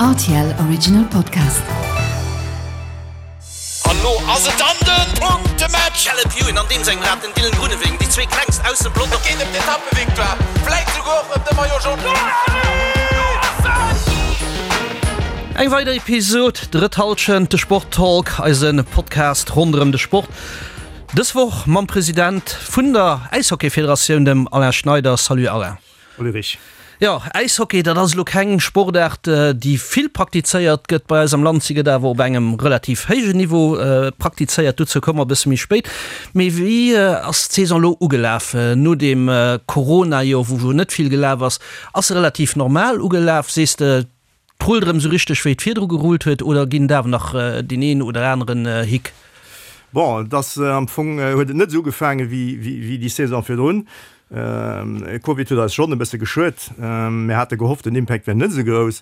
Rtl Original Podcast. An lo ass et dann den Punktematch! Caleb Ewan an deem sengem Rad, den Dylan Groenewegen, déi zwee klengst aus dem Pelotong. Et geet ëm d'Etappevictoire, vläit souguer och ëm de Maillot Jaune. Eng weider Episod, Drëtt Hallschent, de Sport-Talk, eise Podcast ronderëm de Sport. Dës Woch mam President vun der Äishockey-Federatioun, dem Alain Schneider. Salut Alain. Ulrich. Jo, Äishockey, dat ass elo keng Sportaart, déi vill praktizéiert gëtt bei eis am Land. Si gëtt awer op engem relativ héijen Niveau praktizéiert. Dozou komme mer e bësse méi spéit. Mee wéi ass d'Saison elo ugelaf no deem Corona-Joer, wou jo net vill gelaf ass? Ass se relativ normal ugelaf, sees de? Et rullt erëm esou richteg wéi et virdru gerullt huet, oder ginn et awer nach deen een oder aneren Hick? Bon, et ass am Fong huet et net esou ugefaange wéi déi Saison virdrun. Covid huet eis schonn e bësse geschuet. Mir hate gehofft, den Impact wär net esou grouss.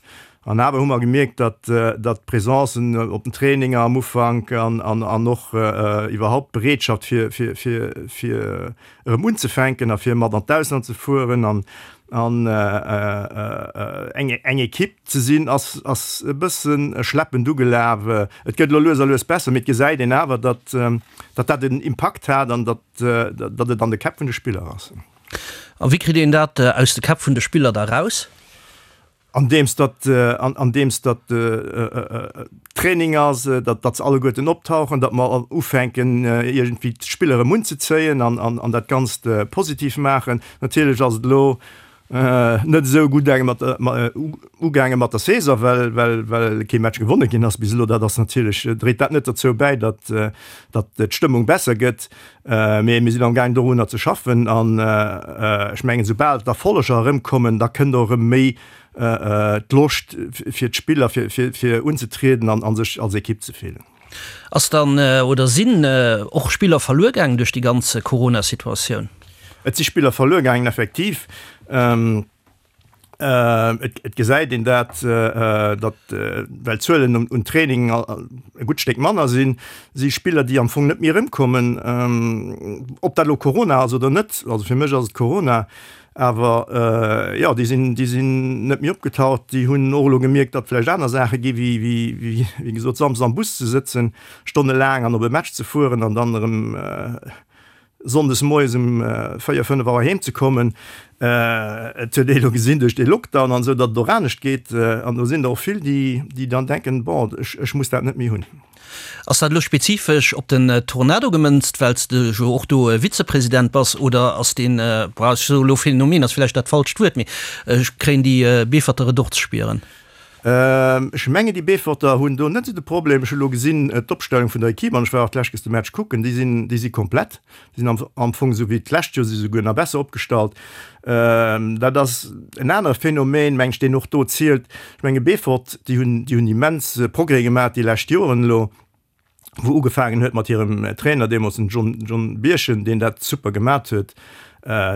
An awer hu mer gemierkt, datt d'Presencen op den Traininger am Ufank an och iwwerhaupt d'Bereetschaft fir fir erëm unzefänken a fir mat an d'Ausland ze fueren an an eng eng Ekipp ze sinn, ass ass e bësse schleppend ugelaf. Et gëtt elo lues a lues besser, mee et gesäit een awer, datt datt dat en Impakt hat an datt datt et an de Käpp vun de Spiller ass. A wéi kritt een dat aus de Käpp vun de Spiller da raus? Andeems datt, andeems datt Training ass, datt, datt se alleguerten optauchen, datt mer ufänken iergendwéi d'Spiller erëm unzezéien an, an, an dat Ganzt positiv maachen. Natierlech ass et elo net esou gutt mat, ugaange mat der Saison, well, well, well kee Match gewonne ginn ass bis elo. Dat ass natierlech, dréit dat net dozou bäi, datt, datt d'Stëmmung besser gëtt. Mee mir sinn amgaang dorunner ze schaffen an ech mengen, soubal d'Erfolleger erëmkommen, da kënnt och erëm méi d'Loscht fir d'Spiller fir unzetrieden an sech als Ekipp ze fillen. Ass dann oder sinn och Spiller verluer gaangen duerch déi ganz Corona-Situatioun? Et si Spiller verluer gaangen, effektiv. Et gesäit een dat, datt, well d'Zuelen un Training e gutt Stéck manner sinn, si Spiller, déi am Fong net méi erëmkommen. Ob dat elo Corona ass oder net, also fir mech ass et Corona, awer jo, déi sinn, déi sinn net méi opgetaucht. Déi hunn och elo gemierkt, datt vläicht aner Saache gi wéi, wéi, wéi gesot, samsdes am Bus ze sëtzen, stonnelaang an op e Match ze fueren an dann erëm Sonndes moies um 4, 5 Auer heem ze kommen. Et huet ee lo gesinn duerch dee Lockdown an esou, datt et och anescht geet. An do sinn der och vill, déi, déi dann denken, bon, ech, ech muss dat net méi hunn. Ass dat elo spezifesch op den Tornado gemënzt, well s de jo och do Vizepresident bass, oder ass deen, bon, ech soe lo Phänomen ass vläicht dat falscht Wuert, mee kréien déi Beeferter et och ze spieren? Ech mengen déi Beeforter hunn do net esou de Problem. Ech hu lo gesinn d'Opstellung vun der Equipe an ech war och d'lescht Kéiers de Match kucken, déi sinn, déi si komplett. Déi sinn am, am Fong esou wéi d'lescht Joer, si souguer nach besser opgestallt. Dat ass en anere Phänomen, meng ech, deen och do zielt. Ech menge Beefort, déi hunn, déi hunn immens Progrès gemaach déi lescht Joren elo. wou ugefaangen huet mat hirem Trainer deemools, den John, John Birchen, deen dat super gemat huet.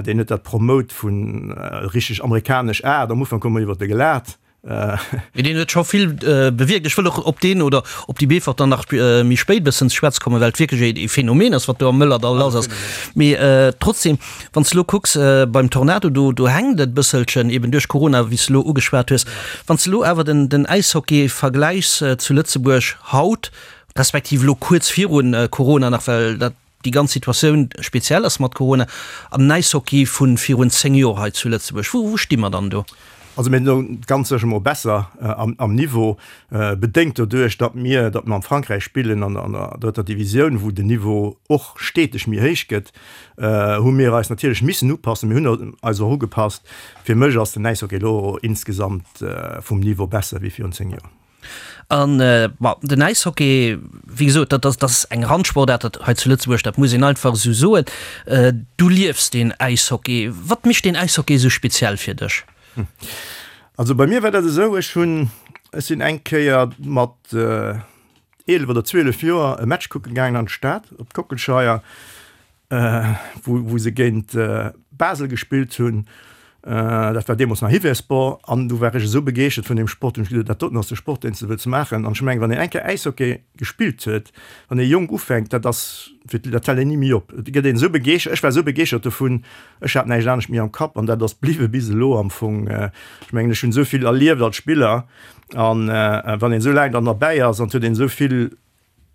Deen huet dat promote vun richteg amerikanesch Aart. Am Ufank hu mer iwwert e gelaacht. Mee deen huet scho vill bewierkt. Ech wëll och op deen oder op déi Beeforter nach méi spéit e bëssen ze schwätze kommen, well et wierklech e Phänomen ass, wat do am Mëllerdall lass ass. Mee trotzdem, wann s de elo kucks beim Tornado, do, do hänkt et e bësselchen, eben duerch Corona, wéi s de elo ugeschwat hues. Wann s de elo awer den, den Äishockey vergläichs zu Lëtzebuerg, haut, respektiv elo kuerz virun Corona nach, well dat déi ganz Situatioun speziell ass mat Corona, an den Äishockey vu virun 10 Joer hei zu Lëtzebuerg, wou sti mer dann do? Also mir sinn ganz sécher mol besser am Niveau, bedéngt doduerch, datt mir, datt mer am Frankräich spillen an der drëtter Divisioun, wou den Niveau och steteg méi héich gëtt, hu mir eis natierlech missen upassen. Mir hunn eis och ugepasst. Fir mech ass den Äishockey elo insgesamt vum Niveau besser wéi virun 10 Joer. An, bon, den Äishockey, wéi gesot, dat ass, dat ass eng Randsportaart dat hei zu Lëtzebuerg, dat muss een einfach esou soen. Du liefs den Äishockey. Wat mécht den Äishockey esou speziell fir dech? Also bei mir war dat esou, ech hunn, ech sinn eng Kéier mat 11 oder 12 Joer e Match kucke gaangen an d'Stad op d'Kockelscheier. wou se géint Basel gespillt hunn. Dat war deemools nach Hiversport an du war ech esou begeeschtert vun deem Sport, hunn ech gesot, dat doten ass de Sport, deen s de wëlls maachen. An ech mengen, wann een eng Kéier Äishockey gespillt huet, wann ee jonk ufänkt, dat ass fir dat hält een ni méi op. Et gëtt een esou begeeschtert, ech war esou begeeschtert dovun, ech hat näischt anescht méi am Kapp an dat ass bliwwe bis elo am Fong. Ech mengen, ech hunn esou vill erlieft als Spiller an wann een esou laang dann derbäi ass an et huet een esou vill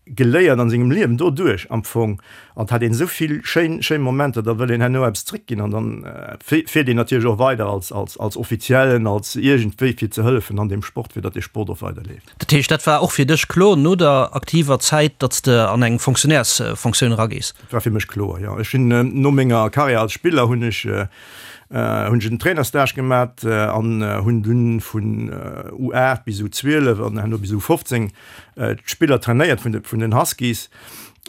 geléiert an sengem Liewen doduerch am Fong an et hat een esou vill schéin schéin Momenter, da wëll een herno eppes zréckginn an dann fiert een natierlech och weider als als als Offiziellen, als iergendwéi fir ze hëllefen an deem Sport, fir datt dee Sport och weiderleeft. Dat heescht, dat war och fir dech kloer no der aktiver Zäit, datt s de an eng Fonctionnairesfonctioun eragees? Dat war fir mech kloer, jo. Ech hunn no menger Karriär als Spiller hunn ech hunn ech en Trainerstage gemat an hunn dunn vun U8 bis U12 an herno bis U15 d'Spiller trainéiert vun de vun den Huskies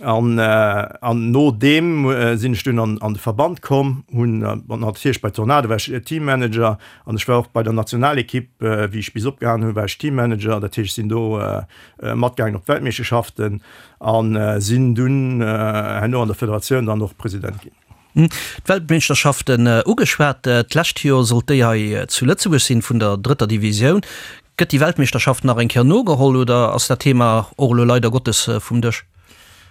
an an no deem sinn ech dunn an an de Verband komm, hunn natierlech bei Tornado war ech Teammanager an ech war och bei der Nationalekipp, wéi ech bis opgehalen hunn, war ech Teammanager, dat heescht ech sinn do matgaangen op d'Weltmeeschterschaften a sinn dunn herno an der Federatioun dann och President ginn. D'Weltmeeschterschaften ugeschwat. D'lescht Joer sollt déi hei zu Lëtzebuerg sinn, vun der drëtter Divisioun. Gëtt déi Weltmeeschterschaft nach eng Kéier nogeholl oder ass dat Thema och elo leider Gottes vum Dësch?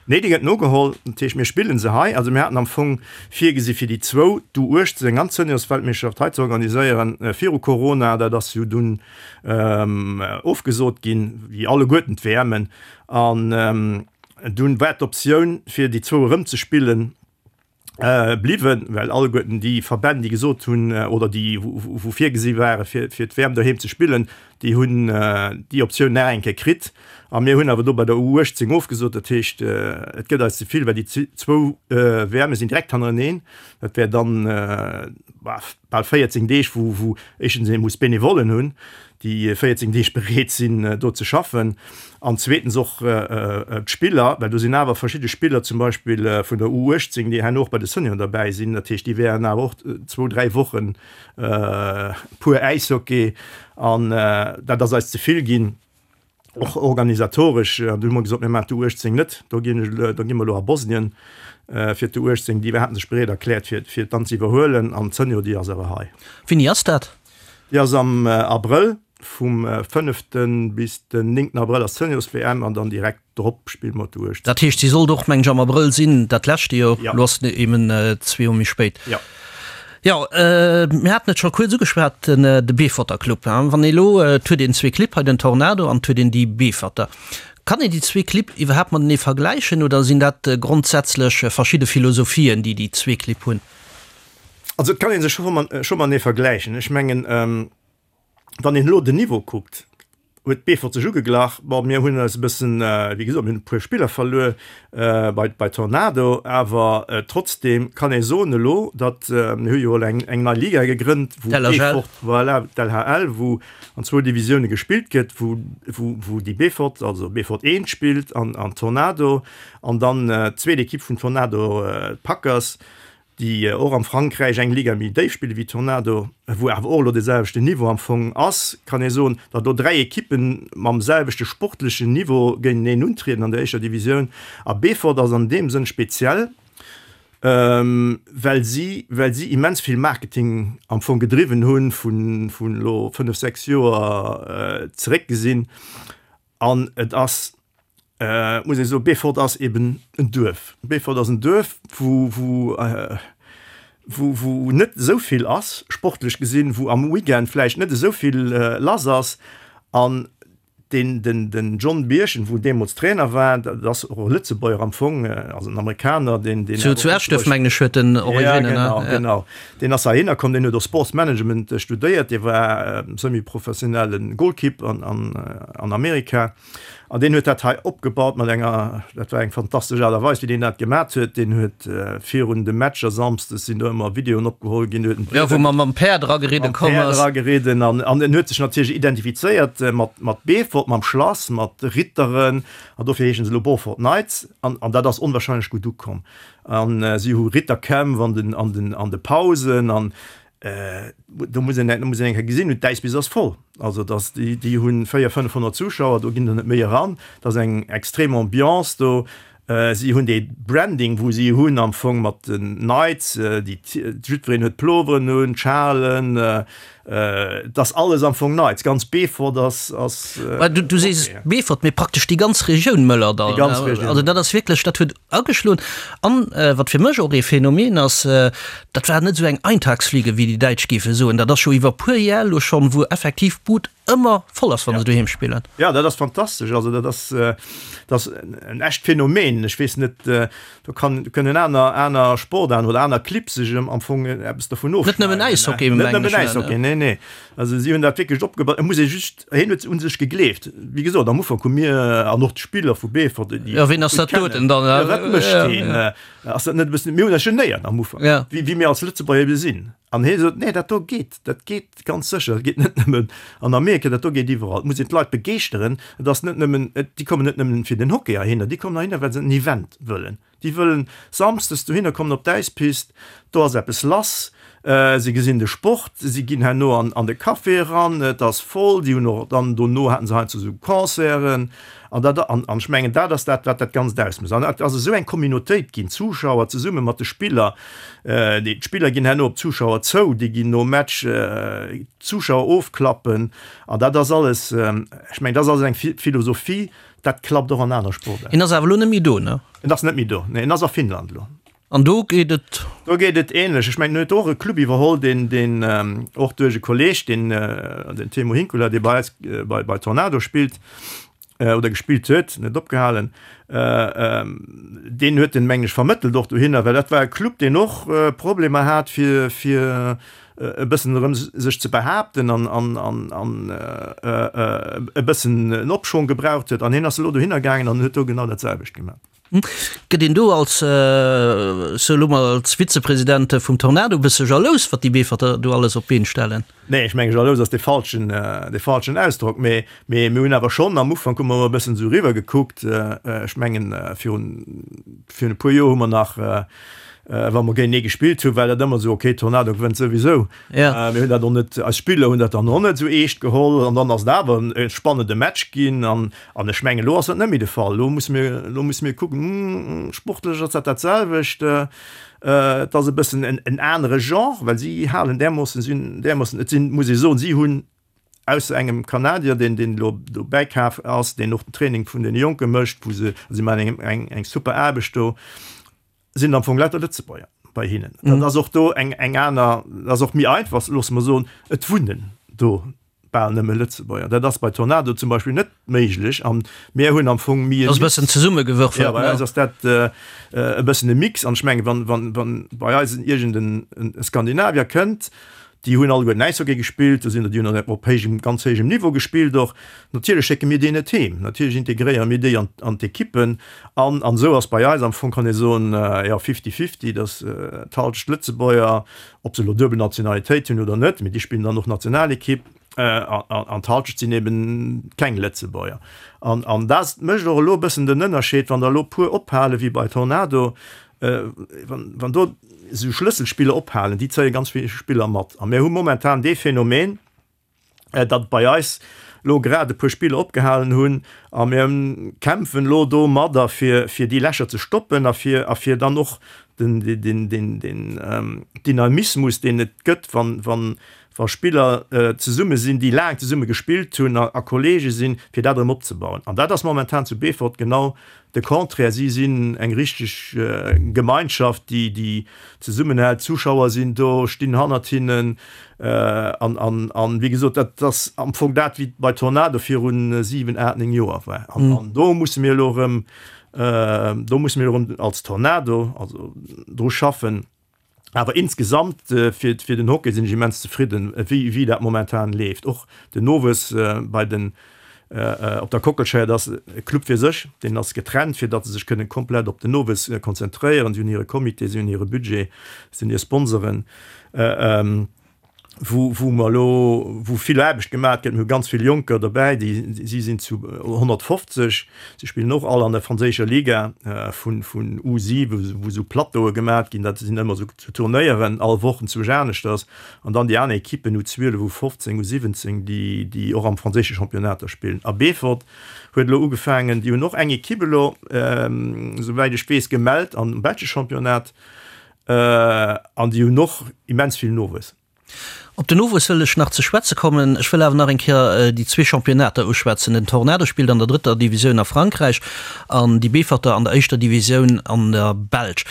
Nee, déi gëtt nogeholl. Dat heescht, mir spillen se hei. Also mir haten am Fong virgesi fir déi zwou, d'U18 an d'Seniorsweltmeeschterschaft hei ze organiséieren viru Corona. Dat ass jo dunn ofgesot ginn, wéi alleguerten d'WMen. An dunn war d'Optioun fir déi zwou erëm ze spillen bliwwen, well alleguerten déi Verbänn, déi gesot hunn oder déi wou virgesi ware fir fir d'WM doheem ze spillen, déi hunn déi Optioun nach eng Kéier kritt. A mir hunn awer do bei der U18 ofgesot. Dat heescht, et gëtt eis ze vill, well déi zwou WMe sinn direkt hannereneen. Dat wär dann bal 14 Deeg, wou wou éischtens ee muss Benevollen hunn, déi 14 Deeg bereet sinn do ze schaffen an zweetens och d'Spiller, well do sinn awer verschidde Spiller zum Beispill vun der U18, déi herno och bei de Senioren derbäi sinn. Dat heescht, déi wären awer och zwou, dräi Wochen pur Äishockey an dat ass eis ze vill ginn, och organisatoresch. An du hu mer gesot, mir maachen d'U18 net, do ginn ech, do gi mer elo a Bosnien fir d'U18. Déi haten sech bereet erkläert fir fir dann ze iwwerhuelen an d'Senior, déi ass awer hei. Wéini ass dat? Déi ass am Abrëll, vum fënnefte bis den néngten Abrëll ass d'Seniors-WM an dann direkt drop spille mer d'U18. Dat heescht, si sollt och, mengen ech, am Abrëll sinn, dat leschte Joer. Elo ass et eben zwee Joer méi spéit. Jo. Jo, mir haten et scho kuerz ugeschwat, de Beeforter Club. Wann ee elo, et huet een zwee Clibb hei, den Tornado an et huet een déi Beeforter. Kann een déi zwee Clibb iwwerhaapt matenee vergläichen oder sinn dat grondsätzlech verschidde Philosophien, déi déi zwee Clibb hunn? Also et kann ee sech scho matenee vergläichen. Ech mengen, wann een elo den Niveau kuckt, huet Beefort sech ugeglach. Bon, mir hunn eis e bëssen, wéi gesot, mir hunn e puer Spiller verluer bei bei Tornado, awer trotzdeem kann ee soen elo, datt, mir hu jo elo eng eng nei Liga gegrënnt, wou Beefort, voilà, d'LHL, wou an zwou Divisioune gespillt gëtt, wou wou wou déi Beefort, also Beefort 1 spillt an an Tornado an dann d'zweet Ekipp vun Tornado, d'Packers. déi och am Frankräich eng Liga méi déif spille wéi Tornado, wou awer och elo dee selwechten Niveau am Fong ass, kann ee soen, datt do 3 Ekippe mam selwechte sportlechen Niveau géinteneen untrieden an der éischter Divisioun. A Beefort ass an deem Sënn speziell, well si well si immens vill Marketing am Fong gedriwwen hunn, vun vun elo 5, 6 Joer zeréck gesinn. An et ass, muss ee soen, Beefort ass eben en Duerf. Beefort ass en Duerf, wou, wou, wou, wou net esou vill ass, sportlech gesinn, wou am Weekend vläicht net esou vill lass ass. An deen, den, den John Birchen, wou deemools Trainer war, dat ass och e Lëtzebuerger am Fong, also en Amerikaner, deen, deen. Zu, zu Eschduerf, mengen ech, huet en Originnen, ne? Ja, genau, genau. Deen ass heihinner komm, deen huet och Sports Management studéiert, dee war semi-professionelle Goalkeep an, an, an Amerika. An deen huet dat hei opgebaut mat enger, dat war eng fantastesch Aart a Weis, wéi deen dat gemat huet. Deen huet virun de Matcher samsdes sinn do ëmmer Videoen opgeholl ginn, huet en Jo, wou mam Päerd erageridde komm ass. Mam Päerd erageridden an, an en huet sech natierlech identifizéiert mat, mat Beefort, mam Schlass, mat Ritteren an dofir heeschen se elo Beaufort Knights an, an dat ass onwahrscheinlech gutt ukomm. An si hu Ritterkämpf an den, an den, an de Pausen an do muss een, do muss een eng Kéier gesinn hunn, d'Äiswiss ass voll. Also dass déi, déi hu 400, 500 Zuschauer, do ginn der net méi eran. Dat ass eng extrem Ambiance do. Si hunn dee Branding, wou si hunn am Fong mat den Knights, déi jiddwereen huet Ploveren un, d'Schalen, et ass alles am Fong Knights. Ganz Beefort ass, ass. Du sees Beefort, mee praktesch déi ganz Regioun Mëllerdall. Déi ganz Regioun. Also dat ass wierklech, dat huet ageschloen. An wat fir mech och ee Phänomen ass, dat war net esou eng Eintagsfliege, wéi déi Däitsch géife soen. Dat ass scho iwwer puer Jar elo schonn, wou effektiv d'Bud ëmmer voll ass, wa se doheem spillen. Jo, dat ass fantastesch. Also dat ass, dat ass en echt Phänomen. Ech weess net, do kann, do kënnen aner, aner Sportaarten oder aner Clibb sech am Fong eppes dovun ofschneiden. Net nëmmen Äishockey, mengen ech. Net nëmmen Äishockey, nee, nee. Also si hunn dat wierklech opgebaut. Et muss ee just, hien huet un sech gegleeft. Wéi gesot, am Ufank hu mir an och d'Spiller vu Beefort, déi. Jo, wien ass dat doten dann? Jo, wat mécht deen? Ass dat net e bëssen, mir hunn eis genéiert am Ufank, wéi, wéi mir als Lëtzebuerger ebe sinn. An hie sot, Nee, dat do geet, dat geet ganz sécher, dat geet net nëmmen an Amerika, dat do geet iwwerall. Et muss een d'Leit begeeschteren. Et ass net nëmmen, déi kommen net nëmmen fir den Hockey heihinner, déi kommen heihinner, well se en Event wëllen. Déi wëllen samsdes dohinner kommen op d'Äispist, do ass eppes lass, se gesinn de Sport, si ginn herno an de Café eran, et ass voll, déi hunn och dann dono haten se heiansdo esou Concerten. An dat, an ech mengen, dat ass dat, wat dat Ganzt ausmécht. An et ass esou eng Communautéit ginn, d'Zuschauer zesumme mat de Spiller. Déi, d'Spiller ginn herno op d'Zuschauer zou, déi ginn nom Match d'Zuschauer ofklappen. An dat ass alles, ech mengen, dat ass alles eng Philosophie, dat klappt och an aner Sportaarten. En ass awer elo net méi do, ne? En ass net méi do, nee, en ass a Finnland elo. An do geet et. Do geet et ähnlech. Ech mengen, en huet och e Club iwwerholl, deen, deen och duerch e Kolleeg, deen, den Teemu Hinkula, dee bei eis bei, bei Tornado spillt oder gespillt huet, net opgehalen, deen huet en, mengen ech, vermëttelt och dohinner, well dat war e Club, deen och Problemer hat, fir, fir e bëssen erëm sech ze behaapten an, an, an, an e bëssen en Opschwong gebraucht huet. An hien ass elo dohinner gaangen an huet do genau dat selwecht gemaach. Gëtt een do als, sou elo mol als Vizepresident vum Tornado e bësse jalous, wat déi Beeforter do alles op d'Been stellen? Nee, ech mengen, jalous ass dee falschen, dee falschen Ausdrock. Mee, mee mir hunn awer schonn, am Ufank hu mer emol e bëssen esou eriwwer gekuckt. Ech mengen, virun, virun e puer Joer hu mer nach, wa mer géintenee gespillt hunn, war dat ëmmer esou, okay, Tornado gewënnt souwisou. Mir hunn dat och net, eis Spiller hunn dat dann och net esou eescht geholl. An dann ass et awer e spannende Match ginn. An, an ech mengen, elo ass dat net méi de Fall. Elo musse mir, elo musse mir kucken, sportlech ass dat dat selwecht. Et ass e bëssen en, en anere Genre, well si halen därmoossen, si hunn därmoossen, et sinn, muss ee soen, si hunn ausser engem Kanadier, deen, deen elo do bäikaf ass, deen och den Training vun deene Jonke mécht, wou se, si maachen eng, eng, eng super Aarbecht do, sinn am Fong lauter Lëtzebuerger bei hinnen. Dat ass och do eng, eng aner, dat ass och méi einfach, loosse mer soen, et wunnen do bal nëmme Lëtzebuerger. Dat ass bei Tornado zum Beispill net méiglech an mir hunn am Fong méi e Ass e bëssen zesummegewürfelt, Ja, bei eis ass dat e bëssen e Mix an ech mengen, wann, wann, wann bei eis iergend en Skandinavier kënnt, Déi hunn alleguerten Äishockey gespillt, do sinn der, déi hunn op héijem, ganz héijem Niveau gespillt och. Natierlech schécke mir déi net heem, natierlech integréiere mir déi an, an d'Ekippen. An, an esou ass bei eis am Fong, kann ee soen, jo, fifty-fifty, datt d'Halschent Lëtzebuerger, ob se elo duebel Nationalitéit hunn oder net, mee déi spillen dann och Nationalekipp, an, an d'Halschent sinn eben keng Lëtzebuerger. An, an dat mécht och elo e bëssen den Ënnerscheed, wann der elo puer ophale wéi bei Tornado, Wann do esou Schlësselspiller ophalen, déi zéie ganz vill Spiller mat. A mir hu momentan dee Phänomen, datt bei eis elo grad e puer Spiller opgehalen hunn a mir kämpfen elo domadder, fir déi Lächer ze stoppen a fir a fir dann och den Dynamismus, deen et gëtt, wann wa Spiller zesumme sinn, déi laang zesumme gespillt hunn a Kollege sinn, fir dat erëm opzebauen. An dat ass momentan zu Beefort genau de Contraire. Si sinn eng richteg Gemeinschaft, déi, déi zesummenhält. D'Zuschauer sinn do, stinn hannert hinnen. An, an, an, wéi gesot, dat ass am Fong dat, wéi et bei Tornado viru 7, 8, 9 Joer war. An, an do musse mir elo erëm, do musse mir elo erëm als Tornado also dru schaffen. Awer insgesamt fir fir den Hockey sinn ech immens zefridden, wéi wéi dat momentan leeft. Och den Nowuess bei den op der Kockelscheier, dat ass e Club fir sech, deen ass getrennt, fir datt se sech kënnen komplett op den Nowuess konzentréieren. Si hunn hire Comité, si hunn hire Budget, si hunn hir Sponsoren. Wou, wou mer elo, wou vill Aarbecht gemaach gëtt. Mir hu ganz vill Jonker dobäi, déi, si sinn zu 150, si spillen och all an der franséischer Liga vun, vun U7, wou esou Plateaue gemaach ginn, dat sinn ëmmer esou Turnéieren, all Woch enzwousch aneschters. An dann déi aner Ekippen, U12, U15, U17, déi, déi och am franséische Championnat da spillen. A Beefort huet elo ugefaangen, déi hunn och eng Ekipp elo, esouwäit ech weess, gemellt am belsche Championnat. An déi hunn och immens vill Nowuess. Op den Nowuess wëll ech nach ze schwätze kommen. Ech wëll awer nach eng Kéier déi zwee Championnater uschwätzen. Den Tornado spillt an der drëtter Divisioun a Frankräich an déi Beeforter an der éischter Divisioun an der Belsch.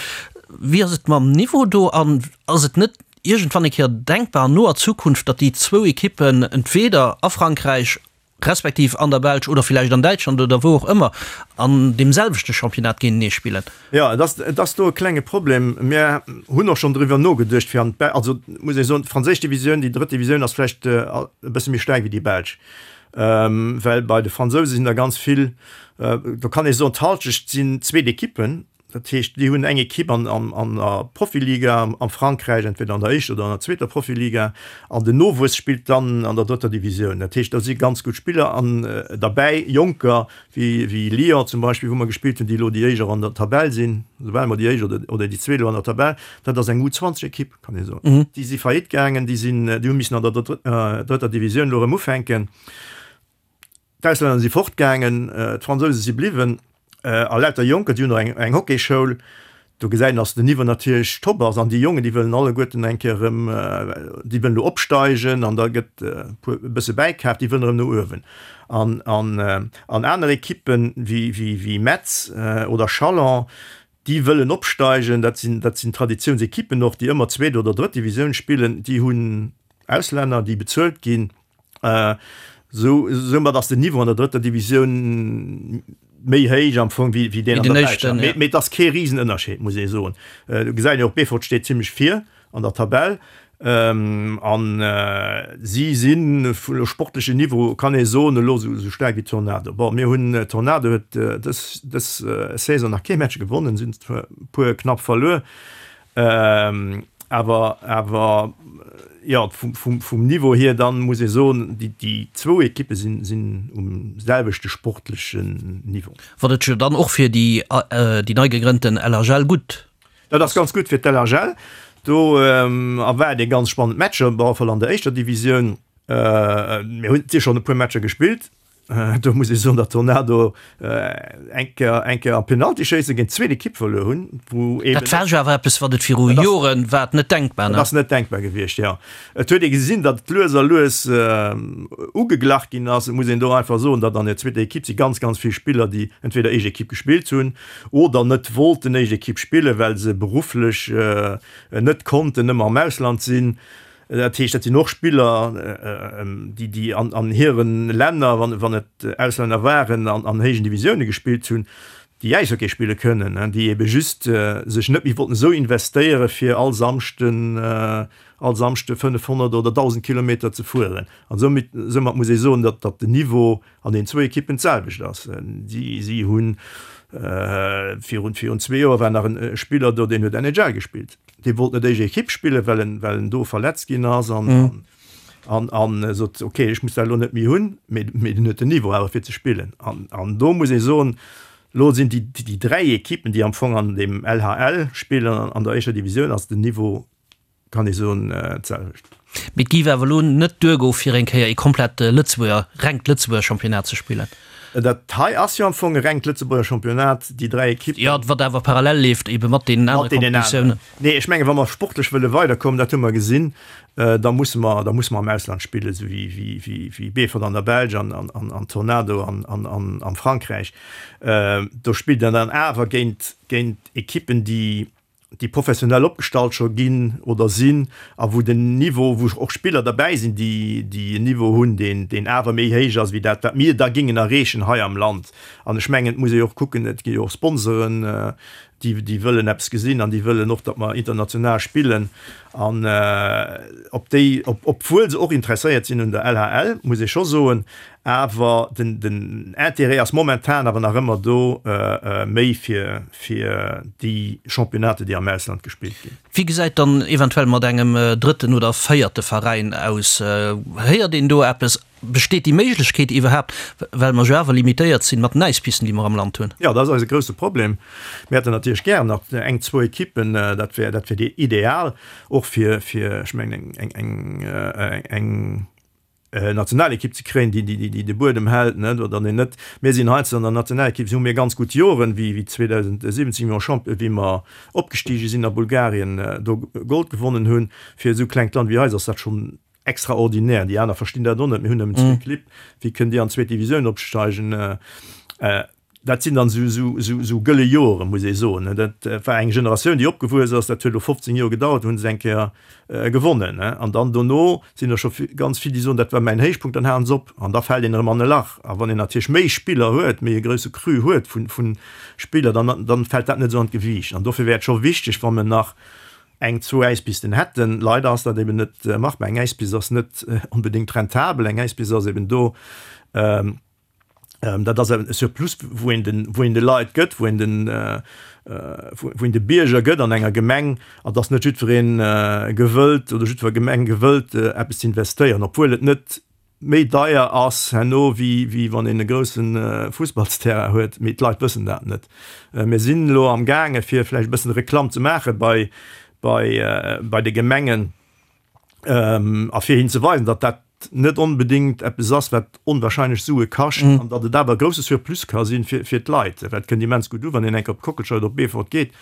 Wéi ass et mam Niveau do an ass et net iergendwann eng Kéier denkbar an noer Zukunft, datt déi zwou Ekippen entweeder a Frankräich respektiv an der Belsch oder villäicht an Däitschland oder wou och ëmmer an deem selwechte Championnat géintenee spillen. Jo, et ass, et ass do e klenge Problem. Mir hunn och schonn driwwer nogeduecht, fir an d'Bel-, also muss ee soen, d'franséisch Divisioun, déi drëtt Divisioun ass vläicht e bësse méi staark wéi déi belsch, well bei de Fransouse sinn der ganz vill, do kann ee soen, d'Halschecht sinn zweet Ekippen, Dat heescht, déi hunn eng Ekipp an der Profiliga am Frankräich, entweder an der éischter oder an der zweeter Profiliga, an den Nowuess spillt dann an der drëtter Divisioun. Dat heescht, do si ganz gutt Spiller an derbäi, Jonker wéi Lyon zum Beispill, wou mer gespillt hunn, déi elo déi éischt och an der Tabell sinn, soubal mer déi éischt oder déi zweet elo an der Tabell. Dat ass eng U20-Ekipp, kann ee soen. Déi si faillite gaangen, déi sinn, déi hu missen an der drëtter Divisioun elo erëm ufänken. D'Auslänner si fortgaangen, d'Fransouse si bliwwen a lauter Jonker, déi hunn och eng Hockeyschoul. Do gesäit een, dass den Niveau natierlech top ass an déi Jongen, déi wëllen alleguerten eng Kéier erëm, déi wëllen elo opsteigen an da gëtt e puer e bësse bäikaaft, déi wëllen erëm no uewen. An an aner Ekippen wéi Metz oder Chalon, déi wëllen opsteigen, dat sinn dat sinn Traditiounsekippen och, déi ëmmer zweet oder drëtt Divisioun spillen, déi hunn Auslänner, déi bezuelt ginn. Sou, soumat ass den Niveau an der drëtter Divisioun méi héich am Fong wéi, wéi deen an der belscher. Mee, mee et ass kee Risenënnerscheed, muss ee soen. Du gesäit jo och, Beefort steet zimmlech vir an der Tabell. An si sinn vun sportlechen Niveau, kann ee soen, elo sou, sou staark wéi Tornado. Bon, mir hunn, Tornado huet dës, dës Saison nach kee Match gewonnen, si hunn e puer knapp verluer. Awer, awer jo, vum, vum Niveau hier dann muss ee soen, déi, déi zwou Ekippe sinn, sinn um selwechte sportlechen Niveau. Wat et jo dann och fir déi, déi nei gegrënnten LHL gutt. Dat ass ganz gutt fir d'LHL. Do erwaart ee ganz spannend Matcher, op alle Fall an der éischter Divisioun. Mir hunn si schonn e puer Matcher gespillt. Do muss ee soen, datt Tornado eng Kéier, eng Kéier am Penaltyschéisse géint d'zweet Ekipp verluer hunn, wou eben. Dat war jo awer eppes, wat et viru Joren war et net denkbar, ne? Dat ass net denkbar gewiescht, jo. Et huet ee gesinn, datt et lues a lues ugeglach ginn ass. Et muss een do einfach soen, datt an der zweeter Ekipp si ganz, ganz vill Spiller, déi entweder éischt Ekipp gespillt hunn oder net wollten éischt Ekipp spillen, well se berufflech net konnten ëmmer am Ausland sinn. Dat heescht, dat sinn och Spiller, déi, déi an, an hire Länner, wann, wann et Auslänner waren, an, an héijen Divisioune gespillt hunn, déi Äishockey spille kënnen, déi ebe just sech net méi wollten esou investéiere fir all Samschden, all Samschde 500 oder 1.000 Kilometer ze fueren. An soumat, soumat muss ee soen, datt, datt den Niveau an den zwou Ekippen d'selwecht ass. Si, si hunn virun, virun zwee Joer war nach en Spiller do, deen huet NHL gespillt. Dee wollt net éischt Ekipp spillen, well en, well en do verletzt ginn ass an, an, an sot, okay, ech muss dat elo net méi hunn, mee, mee en huet den Niveau awer fir ze spillen. An, an do muss ee soen, elo sinn déi, déi dräi Ekippen, déi am Fong an deem LHL spillen, an der éischter Divisioun, ass den Niveau kann ee soen, d'selwecht. Mee et géif awer elo net duergoe fir eng Kéier ee komplett Lëtzebuerger, rengt Lëtzebuerger Championnat ze spillen. Dat hei ass jo am Fong e rengt Lëtzebuerger Championnat, déi 3 Ekippen. Jo, wat awer parallel leeft ebe mat deenen anere Competitiounen. Nee, ech mengen, wa mer sportlech wëlle weiderkommen, dat hu mer gesinn, da musse mer, da musse mer am Ausland spillen, esou wéi, wéi, wéi Beefort an der Belsch an, an, an Tornado an, an, an am Frankräich. Do spillt een dann awer géint, géint Ekippen, déi, déi professionell opgestallt scho ginn oder sinn a wou den Niveau, wou och Spiller derbäi sinn, déi déi en Niveau hunn, deen deen awer méi héich ass wéi dat, wat mir da gingen erreechen hei am Land. An ech mengen, et muss ee jo och kucken, et gi jo och Sponsoren. Déi, déi wëllen eppes gesinn an déi wëllen och, datt mer international spillen. An op déi, op, obwuel se och interesséiert sinn un der LHL, muss ee scho soen, awer den, den Intérêt ass momentan awer nach ëmmer do méi fir, fir déi Championnaten, déi am Ausland gespillt ginn. Wéi gesäit dann eventuell mat engem drëtten oder véierte Veräin aus? Héiert een do eppes? Besteet déi Méiglechkeet iwwerhaapt, well mer jo awer limitéiert sinn mat den Äispisten, déi mer am Land hunn? Jo, dat ass eise grousse Problem. Mir hätten natierlech gären nach eng, zwou Ekippen, dat wär, dat wär ideal, och fir, fir, ech mengen, eng, eng, eng Nationalekipp ze kréien, déi, déi, déi de Buedem hält, net, oder deen net. Mir sinn heiansdo an der Nationalekipp, hu mir ganz gutt Joren, wéi, wéi 2017, wéi mer Champion, wéi mer opgestige sinn a Bulgarien, do Gold gewonnen hunn. Fir esou klengt Land wéi eis ass dat schonn Extraordinär, déi aner verstinn dat och net, mir hunn nëmmen zwee Clibb, wéi kënnt Dir an d'zweet Divisioun opsteigen? Dat sinn dann esou gëlle Joren, muss ee soen. Dat war eng Generatioun, déi opgewuess ass, dat huet elo 15 Joer gedauert, hu se eng Kéier gewonnen. An dann dono sinn der scho ganz vill, déi soen, dat war mäin Héichpunkt, dann halen se op an da fält een erëm an e Lach. A wann een natierlech méi Spiller huet, méi e grousse Cru huet vu Spiller, dann fält dat net esou an d'Gewiicht. An dofir wär et scho wichteg, wa mer nach eng, zwou Äispisten hätten. Leider ass dat eben net machbar. Eng Äispist ass net onbedéngt rentabel. Eng Äispist ass eben do, dat ass e Surplus, wou een den, wou een de Leit gëtt, wou een den, wou een de Bierger gëtt an enger Gemeng. An et ass net jiddweree gewëllt oder jiddwer Gemeng gewëllt, eppes ze investéieren, obwuel et net méi deier ass herno wéi wéi wann een e grousse Fussballsterrain huet, mee d'Leit wëssen dat net. Mir sinn elo am gaange fir vläicht e bëssen Reklamm ze maache bei bei bei de Gemengen a fir hinnen ze weisen, datt dat net onbedéngt eppes ass wat onwahrscheinlech Sue kascht an datt et awer e grousse Surplus ka sinn fir fir d'Leit. Well et kënnt immens gutt u wann een eng Kéier op d'Kockelscheier oder op Beefort geet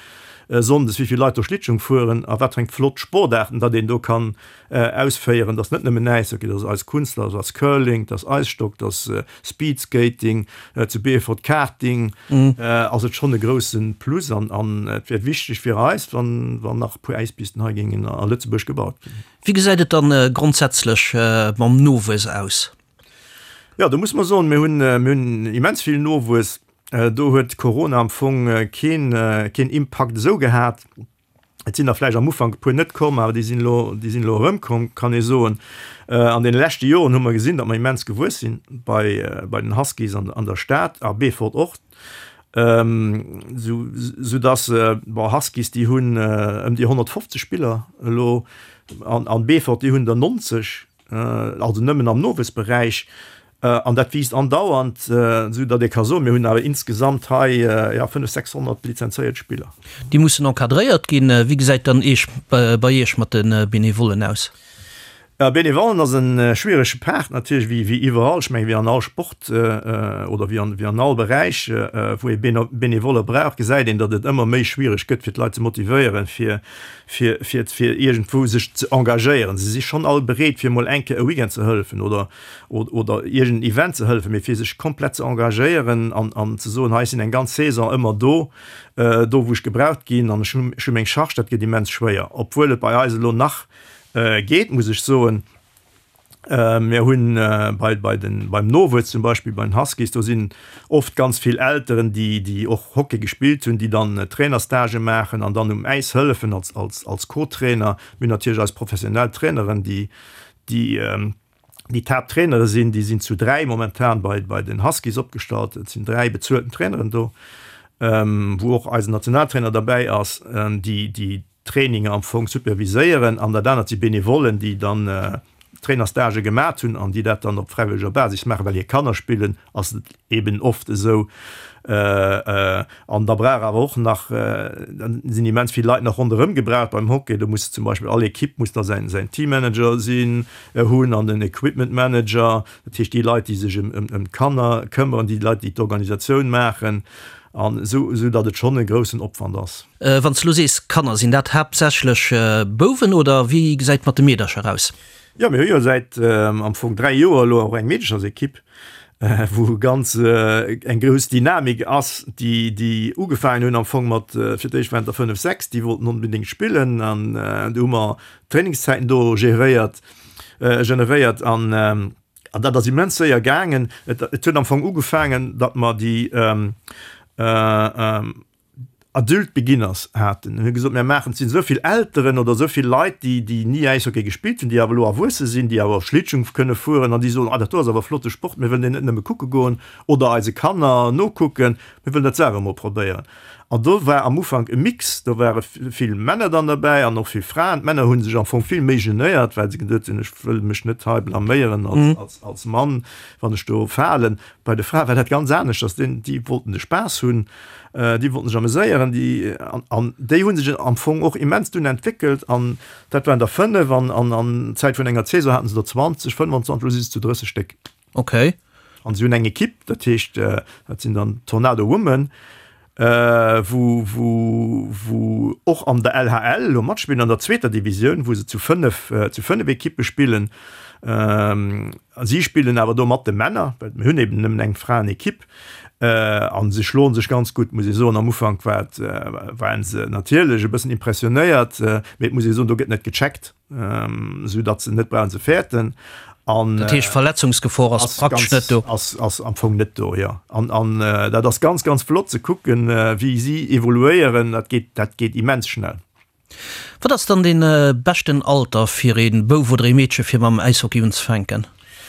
sonndes, wéi vill Leit do Schlittschung fueren a wat fir eng flott Sportaarten datt een do kann ausféieren, dass net nëmmen Äishockey, dass Eiskunstlauf, dass Curling, dass Eisstock, dass Speedskating, zu Beefort Karting, ass et schonn e grousse Plus an an et wär wichteg fir eis, wann wann nach e puer Äispisten hei géingen a Lëtzebuerg gebaut ginn. Wéi gesäit et dann grondsätzlech mam Nowuess aus? Jo, do muss mer soen, mir hunn mir hunn immens vill Nowuess. Do huet Corona am Fong keen keen Impakt esou gehat. Et sinn der vläicht am Ufank e puer net komm, awer déi sinn elo, déi sinn elo erëmkomm, kann ee soen. An deene leschte Joren hu mer gesinn, datt mer immens gewuess sinn bei, bei den Huskies an, an der Stad a Beefort och, sou, soudatt, bon, Huskies, déi hunn ëm déi 150 Spiller elo an, an Beefort, déi hunn der 90. also nëmmen am Nowuessberäich, an dat wiisst andauernd, esou datt ee ka soen, mir hunn awer insgesamt hei, jo, 500, 600 lizenzéiert Spiller. Déi mussen encadréiert ginn. Wéi gesäit dann eech bei Iech mat de Benevollen aus? Jo, Benevollen ass e schwierege Part natierlech, wéi wéi iwwerall. Ech mengen, wéi an all Sport oder wéi an wéi an all Beräich, wou ee Benevolle brauch, gesäit een, datt et ëmmer méi schwiereg gëtt, fir d'Leit ze motivéieren, fir fir, fir, fir iergendwou sech ze engagéieren. Se si schonn all bereet, fir emol eng Kéier e Weekend ze hëllefen oder, oder iergend en Event ze hëllefen, mee fir sech komplett ze engagéieren an, an ze soen, hei, ech sinn eng ganz Saison ëmmer do, do wou ech gebraucht ginn an ech hunn, ech hu meng Charge, dat gëtt immens schwéier. Obwuel et bei eis elo nach geet, muss ech soen. Mir hunn bei, bei den, beim Nowuess zum Beispill, bei den Huskies, do sinn oft ganz vill Elteren, déi, déi och Hockey gespillt hunn, déi dann Trainerstagë maachen an dann um Äis hëllefen als, als, als Co-Trainer. Mir hunn natierlech eis professionell Traineren, déi, déi, déi d'Haapttrainere sinn. Déi sinn zu 3 momentan bei, bei den Huskies opgestallt. Et sinn 3 bezuelten Traineren do, wou och eisen Nationaltrainer derbäi ass, déi, déi Traininger am Fong superviséieren an dat anert si Benevollen, déi dann Trainerstagë gemat hunn an déi dat dann op fräiwëlleger Basis maachen, well hir Kanner spillen, ass et eben oft esou. An da brauch awer och nach, da sinn immens vill Leit nach ronderëm gebraucht beim Hockey. Do muss zum Beispill all Ekipp muss da säin säin Teammanager sinn, hunn an den Equipment Manager, dat heescht déi Leit, déi sech ëm ëm d'Kanner këmmeren, déi Leit, déi d'Organisatioun maachen an esou, esou datt et schonn e groussen Opwand ass. Wann s de lo sees Kanner, sinn dat haaptsächlech Bouwen oder wéi gesäit et mat de Meedercher aus? Jo, mir hu jo säit am Fong 3 Joer elo och eng Meedechersekipp, wou ganz eng grouss Dynamik ass, déi déi ugefaangen hunn am Fong mat, fir d'éischt waren et der 5, 6, déi wollten onbedéngt spillen an du hu mer Trainingszäiten do geréiert, generéiert an an dat ass immens séier gaangen. Et huet am Fong ugefaangen, datt mer déi. Adult Beginners haten. Hunn gesot, mir maachen, et sinn esou vill Elteren oder esou vill Leit, déi, déi ni Äishockey gespillt hunn, déi awer elo erwuesse sinn, déi awer Schlittschung kënne fueren an déi soen, ah dat do ass awer flotte Sport, mir wëllen deen net nëmme kucke goen oder eise Kanner nokucken, mir wëllen dat selwer emol probéieren. An do war am Ufank e Mix, do ware vill Männer dann derbäi an och vill Fraen. D'Männer hu sech am Fong vill méi genéiert, well se geduet hunn, ech wëll mech net hei blaméieren als, als Mann, wann ech do falen. Bei de Frae war dat ganz aneschters, déi wollten de Spaass hunn, déi wollten sech ameséieren, déi, an déi hu sech am Fong och immens dunn entwéckelt an dat waren der 5 an an Zäit vun enger Saison haten se der 20, 25, elo si se zu 30 Stéck. Ok. An si hunn eng Ekipp, dat heescht, dat sinn dann d'Tornado Women, wou, wou, wou och an der LHL elo matspillen, an der zweeter Divisioun, wou se zu 5, zu 5 Ekippe spillen. A si spillen awer do mat de Männer, well mir hunn eben nëmmen eng Fraenekipp. A se schloe sech ganz gutt, muss ee soen. Am Ufank war et, waren se natierlech e bëssen impressionéiert, mee et muss ee soen, do gëtt net gecheckt. Esou datt se net brauchen ze fäerten. An dat heescht Verletzungsgefor ass praktesch net do? Ass, ass am Fong net do, jo. An, an dat ass ganz, ganz flott ze kucken, wéi si evoluéieren. Dat geet, dat geet immens schnell. Wat ass dann dee beschten Alter fir ee Bouf oder ee Meedche fir mam Äishockey unzefänken?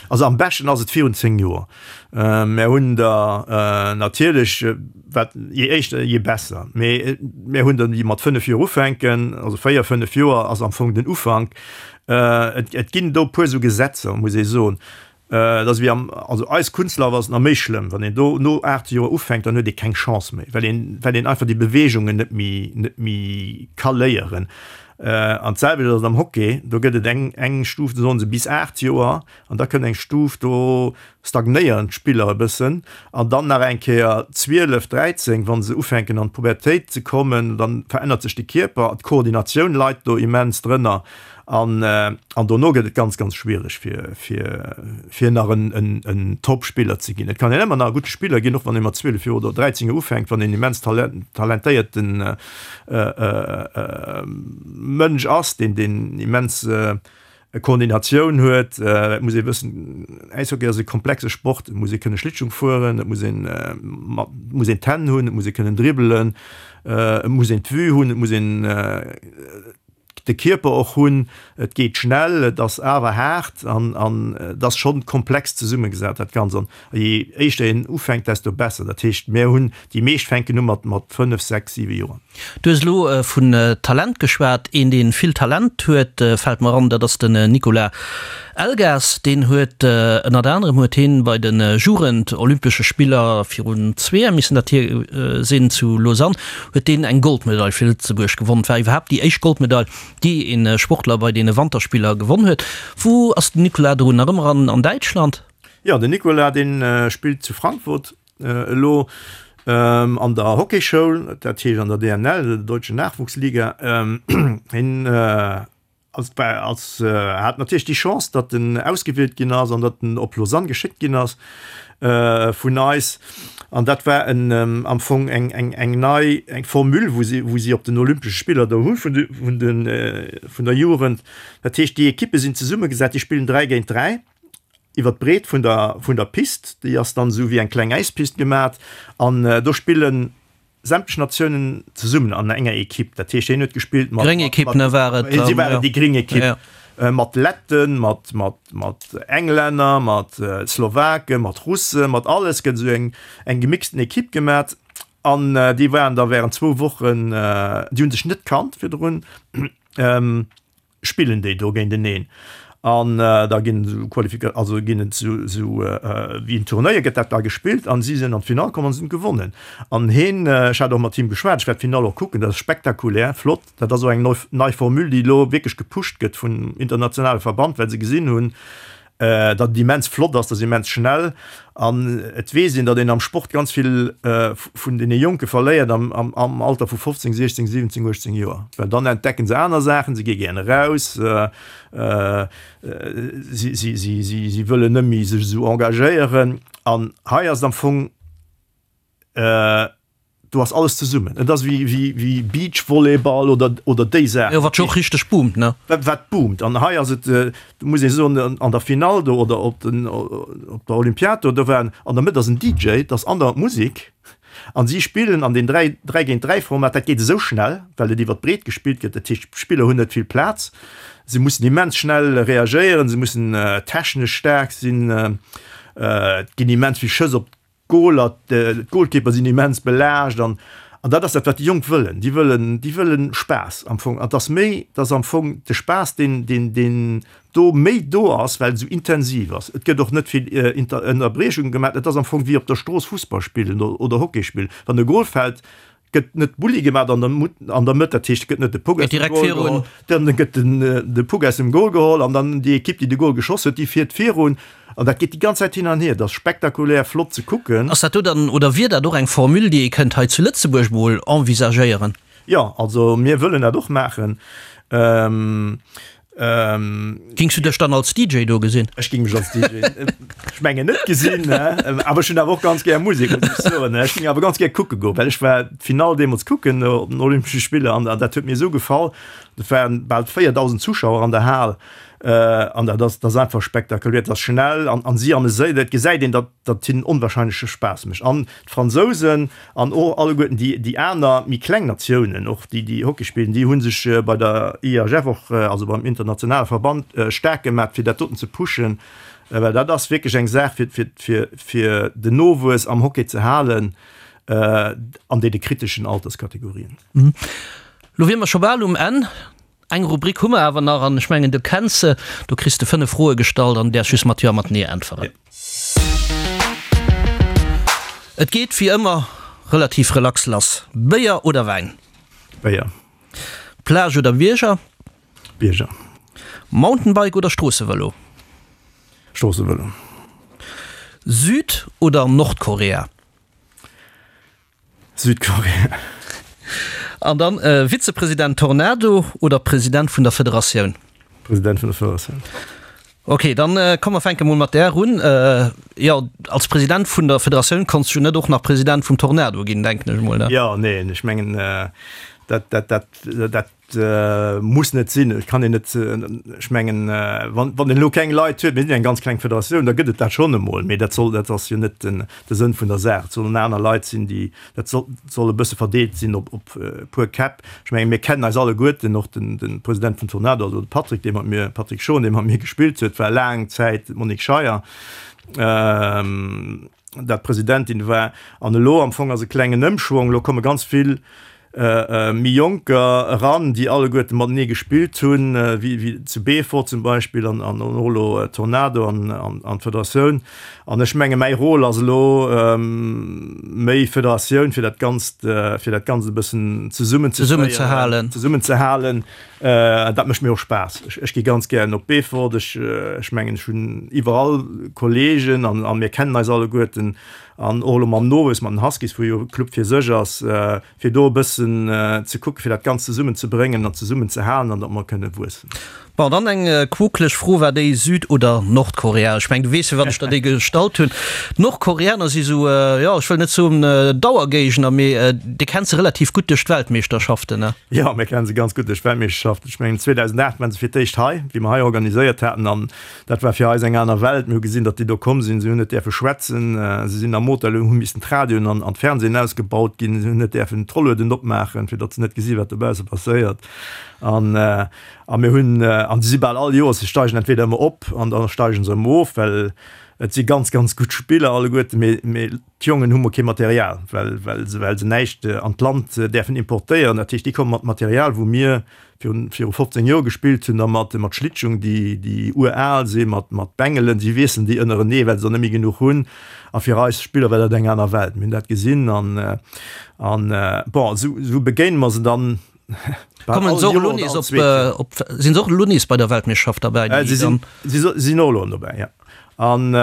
Also am beschten ass et virun 10 Joer. Mär hunn der natierlech, wat je éischter je besser, mee mär hunn der déi mat 5 Joer ufänken, also 4, 5 Joer ass am Fong den Ufank. Et ginn do e puer esou Gesetzer, muss ee soen. Et ass wéi am, also eis Kunstlaf ass et nach méi schlëmm, wann een do no 8 Joer ufänkt, dann huet ee keng Chance méi, well een, well een einfach déi Beweegungen net méi, net méi ka léieren. An d'selwecht ass et am Hockey, do gëtt et eng, eng Stuf, do soen se bis 8 Joer, an da kënnt eng Stuf, do stagnéieren d'Spiller e bëssen, an dann nach eng Kéier 12, 13, wa se ufänken an d'Pubertéit ze kommen, dann verännert sech de Kierper, d'Koordinatioun leit do immens drënner. An, an dono gëtt et ganz, ganz schwiereg fir, fir, fir nach en, en, en Top-Spiller ze ginn. Et kann een ëmmer nach e gudde Spiller ginn, och wann ee mat 12 Joer oder 13 Joer ufänkt, wann een immens talent, talentéierten Mënsch ass, deen, deen immens Koordinatioun huet. Et muss ee wëssen, Äishockey ass e komplexe Sport, et muss ee kënne Schlittschung fueren, et muss een mat, muss een d'Hänn hunn, et muss ee kënnen dribbelen, et muss een d'Vue hunn, et muss een de Kierper och hunn. Et geet schnell, et ass awer haart an an et ass schonn komplex zesummegesat dat Ganzt. An je éischter een ufänkt, desto besser. Dat heescht, mir hunn, déi meescht fänken u mat mat 5, 6, 7 Joer. Du hues elo vun Talent geschwat. Een, dee vill Talent huet, fält mer an, dat ass den Nicolas Elgas. Deen huet ënnert anerem huet hien bei de Jugend-Olympesche Spiller virun zwee Joer missen dat hier sinn zu Lausanne, huet deen eng Goldmedail fir Lëtzebuerg gewonn. Et war iwwerhaapt déi éischt Goldmedail, déi ee Sportler bei deene Wanterspiller gewonn huet. Wou ass den Nicolas drun? Nach ëmmer an Däitschland? Jo, den Nicolas, dee spillt zu Frankfurt elo an der Hockeyschoul, dat heescht an der DNL, der Deutschen Nachwuchsliga. Hien Als als hat natierlech déi Chance, datt en ausgewielt ginn ass an datt en op Lausanne geschéckt ginn ass vun eis. An dat war en am Fong eng eng eng nei eng Formule, wou si wou si op den Olympesche Spiller do hu vun de vun de vun der Jugend. Dat heescht, déi Ekippe sinn zesummegesat, déi spillen 3 géint 3 iwwer d'Breet vun der vun der Pist. Déi ass dann esou wéi eng kleng Äispist gemat an do spillen sämtlech Natiounen zesummen an enger Ekipp. Dat heescht, hien huet gespillt mat. Gréng Ekipp, ne, war et dann? Si waren déi gréng Ekipp. Mat Letten, mat, mat, mat Englänner, mat Slowaken, mat Russen, mat alles gëtt esou eng, eng gemixten Ekipp gemat. An déi waren da während zwou Wochen, déi hu sech net kannt virdrun. spillen déi do géinteneen an da ginn esou Qualifika also ginn et esou esou wéi en Turnéier gëtt dat da gespillt an si sinn an d'Finall komm an se hunn gewonnen an heen, ech hat och mat him geschwat, ech wäert d'Finall och kucken, dat ass spektakulär flott, dat ass och eng neu nei Formule déi elo wierklech gepusht gëtt vun internationale Verband, well se gesinn hunn, datt et immens flott ass, dat ass immens schnell an et weess een, datt een am Sport ganz vill vun deene Jonke verléiert am Alter vu 15, 16, 17, 18 Joer, well dann entdecken se aner Saachen, se gi gären eraus, si wëllen net méi sech esou engagéieren an hei ass et am Fong, Do ass alles zesummen. Et ass wéi, wéi, wéi Beachvolleyball oder, oder déi Saachen. Jo, wat jo och richteg boomt, ne? Wat, wat boomt. An hei ass et, do muss ee soen, an der Finall do oder op den, op der Olympiad do, do war an der Mëtt ass en DJ, et ass andauernd Musek. An si spillen an deem 3, 3 géint 3 Format, dat geet esou schnell, well et iwwer d'Breet gespillt gëtt, dat heescht d'Spiller hunn net vill Plaz, se mussen immens schnell reagéieren, se mussen technesch staark sinn, et ginn immens vill Schëss op D'Goaler, d'Goalkeeper sinn immens belaascht an an dat ass dat wat déi Jonk wëllen. Déi wëllen, déi wëllen Spaass am Fong. An et ass méi, et ass am Fong de Spaass deen, deen, deen do méi do ass, well et esou intensiv ass. Et gëtt och net vill Inter Ënnerbriechunge gemaach. Et ass am Fong wéi op der Strooss Fussball spillen oder Hockey spillen. Wann e Goal fält, gëtt net Bulli gemaat an der an der Mëtt, dat heescht et gëtt net de Puck aus dem Goal geholl, dann gëtt den de Puck aus dem Goal geholl an dann déi Ekipp déi de Goal geschoss huet, déi fiert virun an dat geet déi ganz Zäit hin an hier. Dat ass spektakulär flott ze kucken. Ass dat do dann, oder wier dat och eng Formule déi ee kënnt hei zu Lëtzebuerg mol envisagéieren? Jo, also mir wëllen dat och maachen. Gings du dech dann als DJ do gesinn? Ech ging mech als DJ ech mengen net gesinn, awer ech hunn awer och ganz gär Musek, muss ech soen. Ech ging awer ganz gär kucke goen, well ech war d'Finall deemools kucken op den Olympesche Spiller an dat huet mir esou gefall. Et waren bal 4.000 Zuschauer an der Hal an dat ass, dat ass einfach spektakulär, dat ass schnell an an si ameséiert. Et gesäit een, datt datt hinnen onwahrscheinleche Spaass mécht an d'Fransousen An och alleguerten déi, déi aner méi kleng Natiounen, och déi, déi Hockey spillen, déi hu sech bei der IHF och, also beim internationale Verband, staark gemaat, fir dat doten ze pushen, well dat ass wierklech eng Saach, fir, fir, fir, fir den Nowuess am Hockey ze halen an deene kriteschen Alterskategorien. Lo wier mer scho bal um Enn. Eng Rubrik hu mer awer nach an ech mengen du kenns se. Do kriss de 5 Froe gestallt an däerfs just mat Jo a mat Nee äntweren. Et geet wéi ëmmer relativ relax lass. Béier oder Wäin? Béier. Plage oder Bierger? Bierger. Mountainbike oder Stroossevëlo? Stroossevëlo. Süd oder Nordkorea? Südkorea. An dann Vizepresident Tornado oder President vun der Federatioun? President vun der Federatioun. Ok, dann komm mer fänke mol mat där un. Jo, als President vun der Federatioun konns du jo net och nach President vum Tornado ginn, denken ech mol, ne? Jo, neen, ech mengen dat, dat, dat, dat muss net sinn. Et kann een net, ech mengen, wann, wann een elo keng Leit huet, mir sinn eng ganz kleng Federatioun, da gëtt et dat schonn emol, mee dat soll, dat ass jo net den, de Sënn vun der Saach. Et sollen aner Leit sinn, déi, dat soll, soll e bësse verdeelt sinn op, op e puer Käpp. Ech mengen, mir kennen eis alleguerten, och den, de President vum Tornado, also de Patrick, dee mat mir, Patrick Schon, dee mat mir gespillt huet, war laang Zäit d'Monique Scheier, dat Presidentin war. An elo am Fong ass e klengen Ëmschwong, elo komme ganz vill méi Jonker eran, déi alleguerte matenee gespillt hunn, wéi zu Beefort zum Beispill an och elo Tornado an d'Federatioun. An ech menge mäi Rôle ass elo méi Federatioun, fir dat Ganzt, fir dat Ganzt e bëssen zesummenzehalen. Zesummenzehalen. Dat mécht mir och Spaass. Ech gi ganz gären op Beefort. Ech mengen, ech hunn iwwerall Kolleegen an mir kennen eis alleguerten. An och elo mam Nowuess, mat den Huskies, wou jo e Club fir sech ass, fir do e bëssen ze kucken, fir dat Ganzt zesummen ze bréngen an zesummen ze halen an datt mer kënne wuessen. Bon, dann eng quokeleg Fro, War déi Süd oder Nordkorea? Ech mengen, du weess, firwat ech der déi gestallt hunn. D'Nordkoreaner si sou, jo, ech wëll net soen Dauergéigner, mee Dir kennt se relativ gutt duerch d'Weltmeeschterschaften, ne? Jo, mir kennen se ganz gutt duerch d'Weltmeeschterschaften. Ech mengen, 2008 waren se fir d'éischt hei, wéi mer hei organiséiert haten an Dat war fir eis eng aner Welt. Mir hu gesinn, datt déi do komm sinn. Si hunn net däerfe schwätzen. Si sinn am Hotel, hu missen d'Radioen an d'Fernsehen ausgebaut ginn. Si hunn net däerfen d'Rollueden opmaachen, fir datt se net gesi wat dobausse passéiert. An a mir hunn, an si si bal all Joers, si steigen entweder ëmmer op an da steigen se erëm of, well et si ganz, ganz gutt Spiller alleguerten, mee mee d'Jongen hu mol kee Material, well well se well se näischt an d'Land däerfen importéieren. Dat heescht, déi komme mat Material, wou mir virun viru 15 Joer gespillt hunn, da mat mat Schlittschung, déi déi ural sinn, mat mat Bengelen, si wiesselen déi ënnerenee, well se der net méi genuch hunn. A fir eis Spiller war dat eng aner Welt. Mir hunn dat gesinn an an bon, esou esou begéine mer se dann bal Kommen all se och elo Joer oder nees all op zweet Joer. op sinn se och elo nees bei der Weltmeeschterschaft derbäi, déi Si sinn dann? si sinn och elo dobäi, ja. An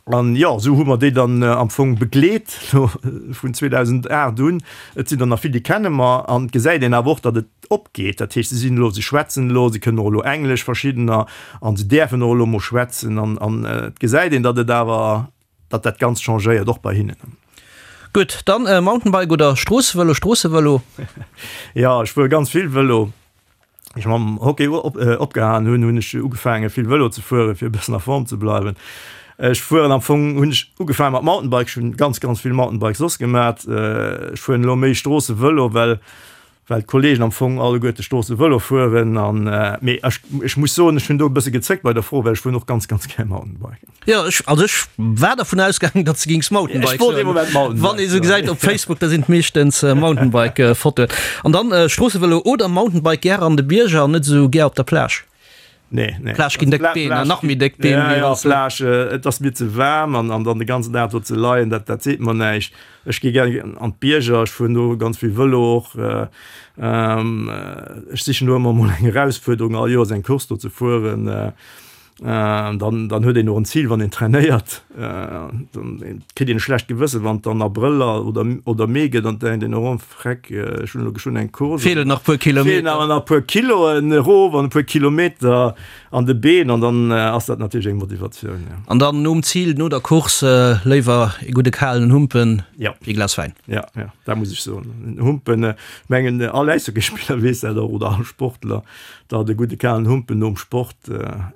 An jo, esou hu mer déi dann am Fong begleet elo vun 2008 un. Et sinn der nach vill, déi kenne mer. An et gesäit een awer och, datt et opgeet. Dat heescht, se sinn elo, se schwätzen elo, se kënnen och elo Englesch, verschiddener, an se däerfen och elo mol schwätzen. An an et gesäit een, datt et awer, datt dat Ganzt changéiert, och bei hinnen. Gutt, dann Mountainbike oder Stroossevëlo? Stroossevëlo. Jo, ech fuere ganz vill Vëlo. Wéi ech mam Hockey opgehalen hunn, hunn ech ugefaange vill Vëlo ze fueren, fir e bëssen a Form ze bleiwen. Ech fueren am Fong, hunn ech ugefaange mat Mountainbike, ech hunn ganz, ganz vill Mountainbike soss gemat. Ech fueren elo méi Stroossevëlo, well well d'Kollegen am Fong alleguerte Stroossevëlo fueren an mee ech ech muss soen, ech hunn do e bësse gezéckt bei der Fro, well ech fueren och ganz, ganz gär Mountainbike. Jo, ech, also ech war dervun ausgaangen, datt s de gings Mountainbike Ech wollt ee Moment Mountainbike Wann ee sou gesäit op Facebook, da sinn et meeschtens Mountainbike-Fotoen. An dann Stroossevëlo oder Mountainbike gär an de Bierger an net esou gär op der Plage? Nee, nee. Plage ginn déck Been, an nach méi déck Been. Ja, ja, Plage, et ass mir ze waarm an, an dann de ganzen Dag do ze leien, dat, dat seet mer näischt. Ech gi gär an d'Bierger, ech fueren do ganz vill Vëlo och. Ech sichen do ëmmer emol eng Erausfuerderung, all Joers eng Course do ze fueren. Dann, dann huet een och en Zil, wann een trainéiert. Dann kritt een e schlecht Gewëssen, wann et dann Abrëll oder, oder Mee gëtt an et denkt een, oh Freck, ech hunn elo geschwënn eng Course. Feelen nach puer Kilometer. Feelen awer nach puer Kiloen erof an e puer Kilometer an de Been an dann ass dat natierlech eng Motivatioun, jo. An dann nom Zil, no der Course, léiwer e gudde kalen Humpen wéi e Glas Wäin. Jo, jo, dat muss ech soen. En Humpen, ech mengen all Äishockeyspiller weess dat och oder all Sportler, datt e gudde kalen Humpen nom Sport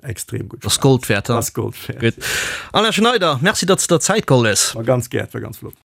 extrem gutt schmaacht. Ass Gold wäert, Ass Gold wäert. Gutt. Alain Schneider, Merci, datt s de der Zäit geholl hues. Ma ganz gär, et war ganz flott.